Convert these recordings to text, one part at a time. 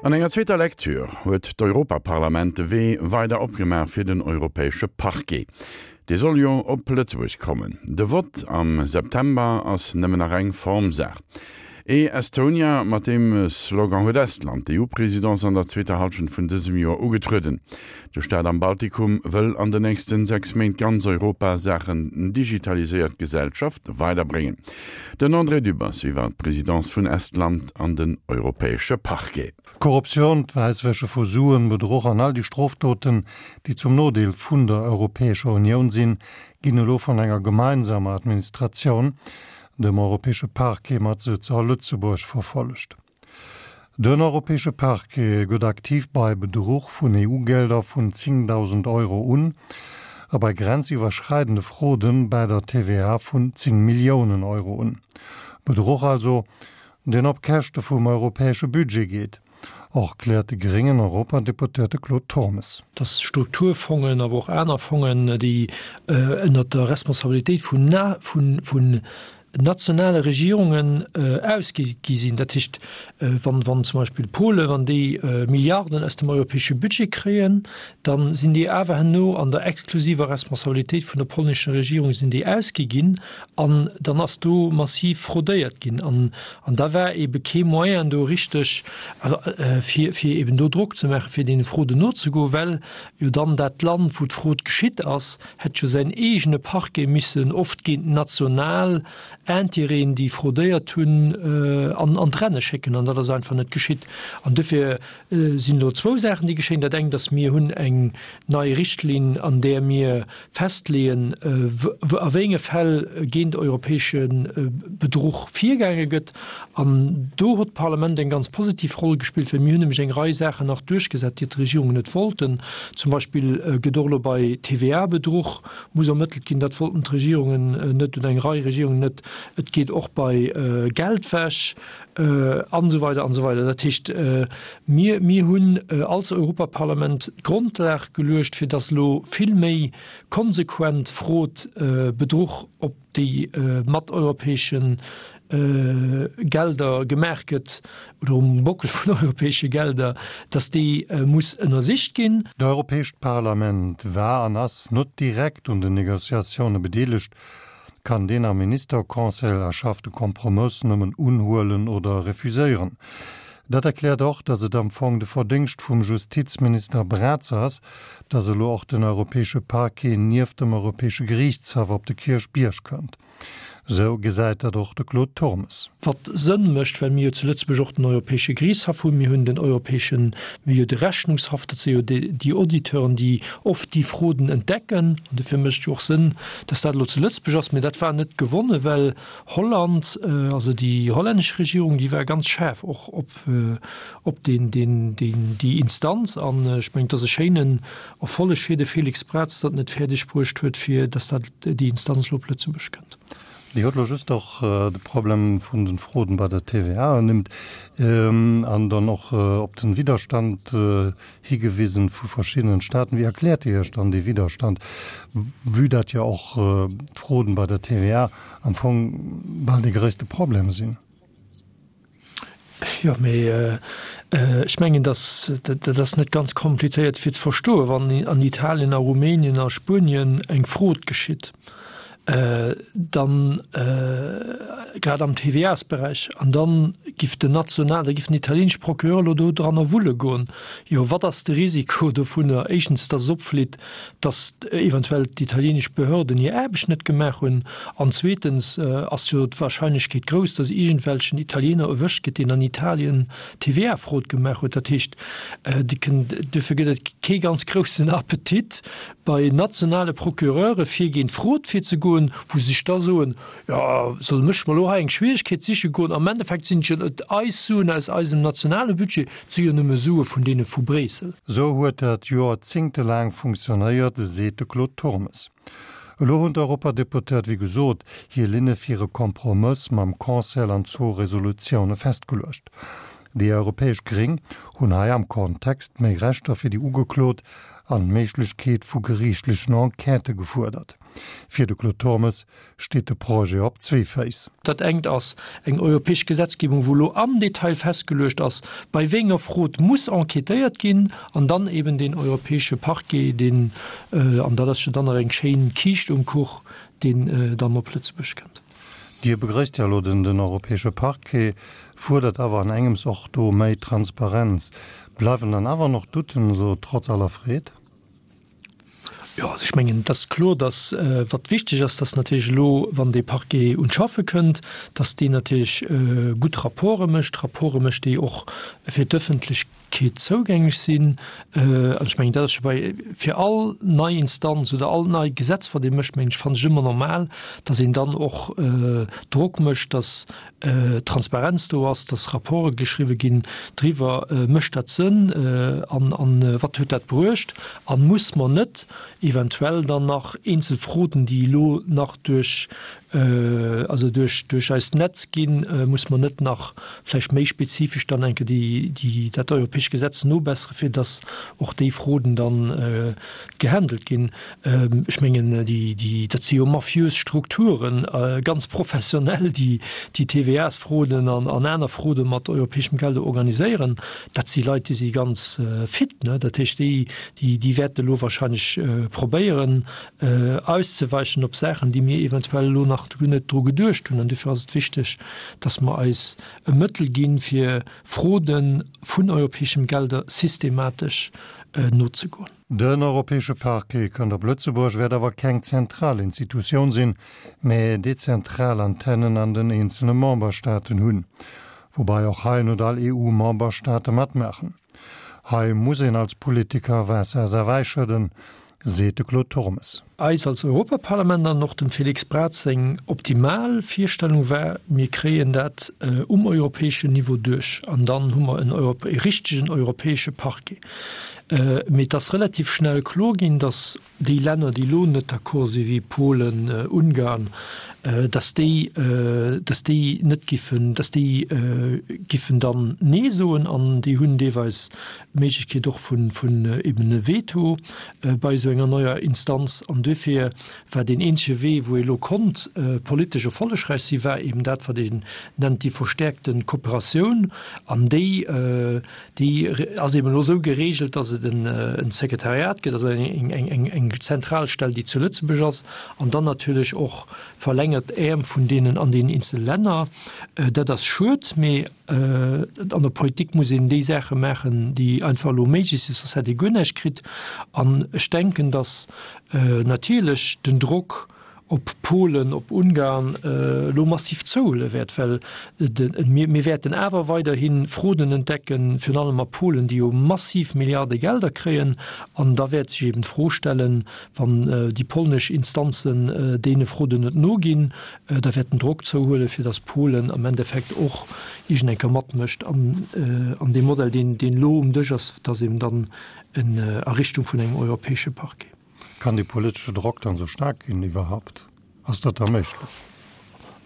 An enger zweeter Lecture huet d'Europaparlament de Wee weider opgemaach fir den europäesche Parquet. Dee soll jo op Lëtzebuerg kommen. De Vott am September ass nëmmen nach eng Formsaach. E-Estonia, mat deem Slogan huet Estland d'EU-Presidence an der zweeter Hallschent vun dësem Joer ugetrueden. De Staat am Baltikum wëll an den nächsten 6 Méint ganz Europa Saachen digitaliséiert Gesellschaft weiderbréngen. Den André Dübbers iwwer d'Presidence vun Estland an den europäesche Parquet. Korruptioun, d'Wäisswäsche vu Suen, Bedruch an all déi Strofdoten, déi zum Nodeel vun der Europäescher Unioun sinn, ginn elo vun enger gemeinsamer Administratioun, dem Europäesche Parquet mat Sëtz a Lëtzebuerg, verfollegt. Den Europäesche Parquet gëtt aktiv bei Bedruch vun EU-Gelder vun 10.000 Euro un a bei grenziwwerschreidende Fraude bäi der TVA vun 10 Milliounen Euro un. Bedruch also, deen op Käschte vum europäesche Budget geet, erkläert de gréngen Europadeputéierte Claude Turmes. Dass Strukturfongen, awer och aner Fongen, déi ënnert der Responsabilitéit vun nationale Regierungen ausgi gi sinn. Dat heescht, wann, wann zum Beispill Polen, wann déi Milliarden aus dem europäesche Budget kréien, da sinn déi awer herno an der exklusiver Responsabilitéit vun der polnescher Regierung sinn déi ausgi ginn an dann ass do massiv fraudéiert ginn an, an da war ebe kee Moyen do richteg, also fir, fir eben do Drock ze maachen, fir deene Fraude nozegoen, well jo dann dat Land, wou d'Fraud geschitt ass, hätt jo säin eegene Parquet missen oft géint national Intérêten, déi fraudéiert hunn, an an d'Renne schécken. An dat ass einfach net geschitt. An dofir sinn elo zwou Saachen, déi geschéien. Dat engt ass, mir hunn eng nei Richtlinn, an där mir festleeën, a wéi enge Fäll géint europäesche Bedruch virgaange gëtt. An do huet d'Parlament eng ganz positiv Roll gespillt, well mir hunn nämlech eng Rei Saachen nach duerchgesat, déi d'Regierungen net wollten. Zum Beispill gëtt och elo bei TVA-Bedruch muss ermëttelt ginn. Dat wollten d'Regierungen net oder eng Rei Regierungen net. Et geet och bei Geldwäsch an esou weider an esou weider. Dat heescht, mir, mir hunn als Europaparlament d'Grondlag geluecht, fir datt elo vill méi konsequent Fraude, Bedruch op déi mat europäesche Gelder gemaach gëtt, oder um Bockel vun europäesche Gelder, datt déi muss ënnersicht ginn. D'Europäescht Parlament war an ass net direkt un den Negociatioune bedeelegt, kann deen am Ministerconseil erschaffte Kompromëss nëmmen unhuelen oder refuséieren. Dat erkläert och, datt et am Fong de Verdéngscht vum Justizminister Braz ass, datt elo och den Europäesche Parquet nieft dem Europäesche Geriichtshaff op de Kierchbierg kënnt. Esou gesäit dat och de Claude Turmes. Wat Sënn mécht, well mir jo zu Lëtzebuerg och den Europäesche Geriichtshaff hunn, mir hunn den Europäeschen, mir hu jo de Rechnungshaff, dat si jo déi Auditeuren, déi oft déi Fraude entdecken. An dofir mécht et jo och Sënn, datt dat elo zu Lëtzebuerg ass. Mä dat war net gewonnen, well Holland, also déi hollännesch Regierung, déi war ganz schaarf och op, op deen, deen, deen, déi Instanz. An ech mengen, et ass e schéinen Erfolleg fir de Félix Braz, datt en et fäerdeg bruecht huet, fir datt dat, déi Instanz elo op Lëtzebuerg kënnt. Dir hutt elo just och de Problem vun den Fraude bei der TVA ernimmt an dann och op den Widderstand higewisen vu verschiddenen Staaten. Wéi erkläert Dir Iech dann dee Widderstand, vue dat jo och d'Frauden bei der TVA am Fong bal dee gréisste Problem sinn? Jo, mee ech mengen, dass dat ass net ganz komplizéiert fir ze verstoen. Wann an Italien, a Rumänien, a Spuenien eng Fraude geschitt, dann, grad am TVA-sberäich, an dann giff den national, da giff den italienesche Procureur elo do dranner wulle goen, jo wat ass de Risiko dovunner? Éischtens, dass es opflitt, dass eventuell d'italienesch Behörden hir Aarbecht net gemaach hunn, an zweetens ass jo d'Wahrscheinlechkeet grouss, dass iergendwelchen Italiener erwëscht gëtt, deen an Italien TVA-Fraude gemaach huet. Dat heescht, duerfir gëtt et kee ganz groussen Appetit bei nationale Procureure fir géint Fraude virzegoen, wou se sech da soen, Jo, solle mech mer elo hei eng Schwierigkeet siche goen? Am Endeffekt sinn et jo net eis Suen aus eisem nationale Budget, et si jo nëmme Sue vun deene vu Bréissel. Sou huet dat joerzéngtelaang funktionéiert, seet de Claude Turmes. Elo hunn d'Europadeputéiert, wéi gesot, hir Linne fir e Kompromëss mam Conseil an zwou Resolutioune festgeluecht. Déi europäesch Gréng hunn hei am Kontext méi Rechter fir déi Ugeklot an d'Méiglechkeet vu geriichtlechen Enquêtë gefuerdert. Fir de Claude Turmes steet de Projet op zwee Féiss. Dat engt ass eng europäesch Gesetzgebung, wou elo am Detail festgeluecht ass, bei wéi enger Frod muss enquêtéiert ginn, an dann eben deen europäesche Parquet, deen, an dat ass jo dann nach eng schéin Kiischt um Kuch, deen dann op Lëtzebuerg kënnt. Dir begrëisst jo elo den europäesche Parquet, fuerdert awer an engems och do méi Transparenz. Bleiwen dann awer nach Douten, esou trotz aller Freed? Jo, also ech mengen, et ass kloer, datt, wat wichteg ass, datt natierlech elo, wann dee Parquet un d'Schaffe kënnt, datt deen natierlech gutt Rapporte mécht, Rapporte mécht, déi och fir d'Ëffentlechkeet zougänglech sinn. An ech mengen, dat ass scho bei, fir all nei Instanz oder all nei Gesetz, wat ee mécht, mengen ech, fannen ech ëmmer normal, datt een dann och Drock mécht, datt Transparenz do ass, dass Rapporte geschriwwe ginn driwwer, mécht dat Sënn an an wat huet dat bruecht an muss mer net eventuell dann nach eenzel Froden, déi elo nach duerch also duerch duerch eist Netz ginn, muss mer net nach vläicht méi spezifesch dann enke déi déi dat europäescht Gesetz nobessere fir dass och déi Froden dann gehandelt ginn. Ech mengen, déi, dat si jo mafiös Strukturen, ganz professionell, déi déi TVA-Fraude an aner Fraude mat europäeschem Geld organiséieren. Dat si Leit, déi si ganz fit. Dat heescht, déi, déi wäerte elo wahrscheinlech probéieren auszeweichen op Saachen, déi mir eventuell elo nach guer net dru geduecht hunn. An dofir ass et wichteg, datt mer eis e Mëttel ginn, fir Fraude vun europäeschem Gelder systematesch nozegoen. Den Europäesche Parquet kënnt op Lëtzebuerg, wäert awer keng zentral Institutioun sinn, mä dezentral Antennen an den eenzele Memberstaaten hunn. Woubai och hei net all EU-Memberstaate matmaachen. Hei muss een als Politiker Waasser a Wäi schëdden, seet de Claude Turmes. Eis als Europaparlament an och dem Félix Braz seng optimal Virstellung war, mir kréien dat um europäeschen Niveau duerch an dann hu mer en e richtegen europäesche Parquet. Mee et ass relativ schnell kloer ginn, datt déi Länner, déi elo net d'accord si wéi Polen, Ungarn, datt déi, datt déi net giffen, datt déi giffen dann Nee soen an déi hunn deelweis d'Méiglechkeet och vun, vun eben e Veto bei esou enger neier Instanz. An duerfir war deen eenzege Wee, wou ee lo konnt politesch erfollegräich sinn, war eben dat, wat een nennt déi verstärkte Kooperatioun. An déi, déi ass eben elo esou geregelt, dass et en Sekretariat gëtt, also eng, eng, eng, eng Zentralstell, déi zu Lëtzebuerg ass, an dann natierlech och verlängert Äerm vun deenen an deenen eenzele Länner. Dat ass schued, mee An der Politik muss een déi Saache maachen, déi einfach elo méiglech sinn, soss hätt ee guer näischt kritt. An ech denken, datt natierlech den Drock op Polen, op Ungarn elo massiv zouhuele wäert, well mir wäerten awer weiderhi Froden entdecken, virun allem a Polen, déi jo massiv Milliarde Gelder kréien. An da wäert sech eben d'Fro stellen, wann déi polnesch Instanzen deene Froden net noginn, Da wäert den Drock zouhuelen, fir datt Polen am Endeffekt och iergend eng Kéier matmécht an an deem Modell, deen deen elo um Dësch ass, datt eben dann en a Richtung vun engem europäesche Parquet. Kann dee politesche Drock dann esou staark ginn iwwerhaupt? Ass dat da méiglech?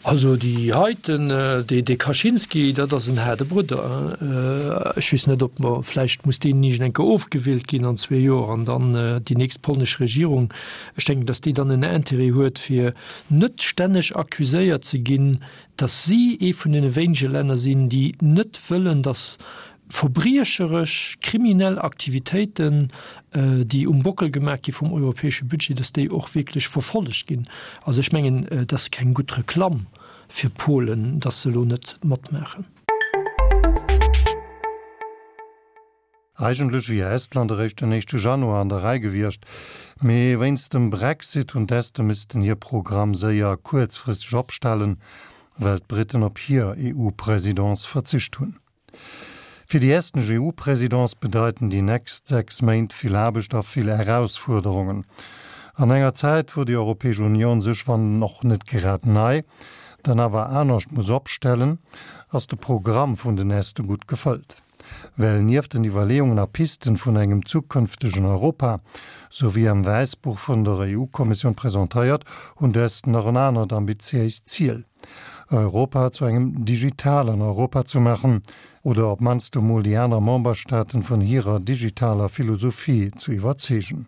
Also déi heiten, dee dee Kaczynski, dat ass en haarde Brudder. Ech weess net, ob mer, vläicht muss deen iergend eng Kéier ofgewielt ginn an zwee Joer an dann déi nächst polnesch Regierung, ech denken, datt déi dann en Intérêt huet, fir net stänneg accuséiert ze ginn, datt si ee vun deene wéinege Länner sinn, déi net wëllen, datt verbriecheresch, kriminell Aktivitéiten, déi um Bockel gemaach gi vum europäesche Budget, datt déi och wierklech verfollegt ginn. Also ech mengen, et ass keng gutt Reklamm fir Polen, datt se elo net matmaachen. Eigentlech wier Estland eréischt den éischte Januar an der Rei gewiescht, mee wéinst dem Brexit hunn d'Este missten hir Programm séier kuerzfristeg opstellen, well d'Britten op hir EU-Presidence verzicht hunn. Fir déi estnesch EU-Presidence bedeiten déi nächst 6 Méint vill Aarbecht a vill Erausfuerderungen. An enger Zäit, wou déi Europäesch Unioun sech, wann och net grad nei, dann awer anescht muss opstellen, ass de Programm vun den Este gutt gefëllt. Well nieft den Iwwerleeungen a Pisten vun engem zukënftegen Europa, sou wéi am Wäissbuch vun der EU-Kommissioun presentéiert, hunn d'Esten nach en anert ambitiéist Ziel, Europa zu engem digitalen Europa ze maachen, oder op mannst emol déi aner Memberstaaten vun hirer digitaler Philosophie ze iwwerzeegen.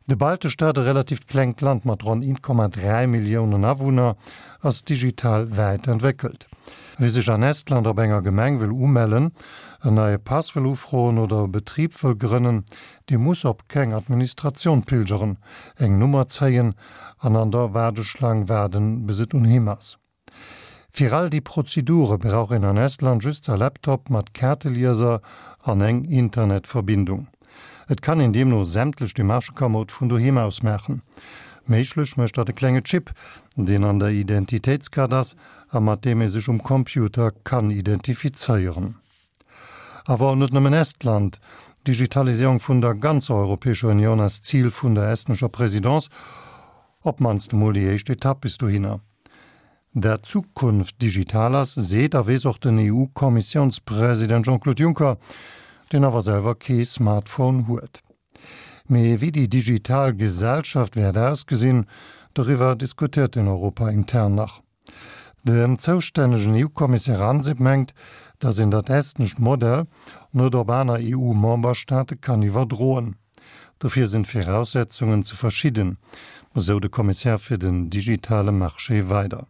De Baltestaat, e relativt klengt Land mat ronn 1,3 Milliounen Awunner, ass digital wäit entwéckelt. Wie sech an Estland op enger Gemeng wëll umellen, en neie Pass wëll ufroen oder e Betrib wëll grënnen, dee muss op keng Administratioun pilgeren, eng Nummer zéien an an der Waardeschlang waarden, bis et un him ass. Fir all déi Prozedure brauch een an Estland just sa Laptop mat Kaartelieser an eng Internetverbindung. Et kann een deemno sämtlech Demarchë kamoud vun doheem aus maachen. Méiglech mécht dat e klenge Chip, deen an der Identitéitskaart ass a mat deem ee sech um Computer kann identifizéieren. Awer net nëmmen Estland, D'Digitaliséierung vun der ganzer Europäescher Unioun ass d'Zil vun der estnescher Présidence, op d'mannst emol déi éischt Etapp bis dohinner. Dat d'Zukunft digital ass, seet a weess och den EU-Kommissiounspresident Jean-Claude Juncker, deen awer selwer kee Smartphone huet. Mee wéi déi digital Gesellschaft wäert ausgesinn, doriwwer diskutéiert een Europa intern nach. Den zoustännegen EU-Kommissär Ansip mengt, datt een dat estnescht Modell net op aner EU-Memberstaate kann iwwerdroen. Dofir sinn d'Viraussetzungen ze verschidden, esou de Kommissär fir den digitale Marché weider.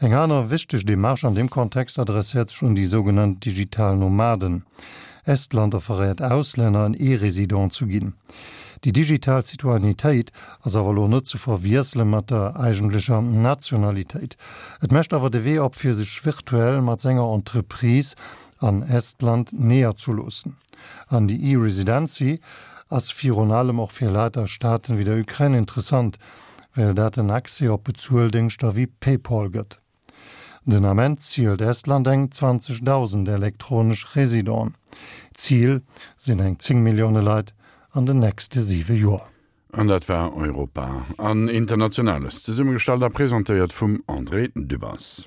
Eng aner wichteg Demarche an deem Kontext adresséiert sech un déi sougenannt digital Nomaden. Estland offeréiert Auslänner en E-Resident zu ginn. Déi digital Citoyennetéit ass awer elo net ze verwiessele mat der eigentlecher Nationalitéit. Et mécht awer de Wee op fir sech virtuell mat senger Entreprise an Estland neerzeloossen. An déi E-Residency ass virun allem och fir Leit aus Staaten wéi der Ukrain interessant, well dat en Accès op Bezueldéngschter wéi PayPal gëtt. Den Ament zielt Estland eng 20.000 elektronesch Residenten. Zil sinn eng 10 Millioune Leit an den nächste siwe Joer. An dat war Europa an Internationales, zesummegestallt a presentéiert vum André Dübbers.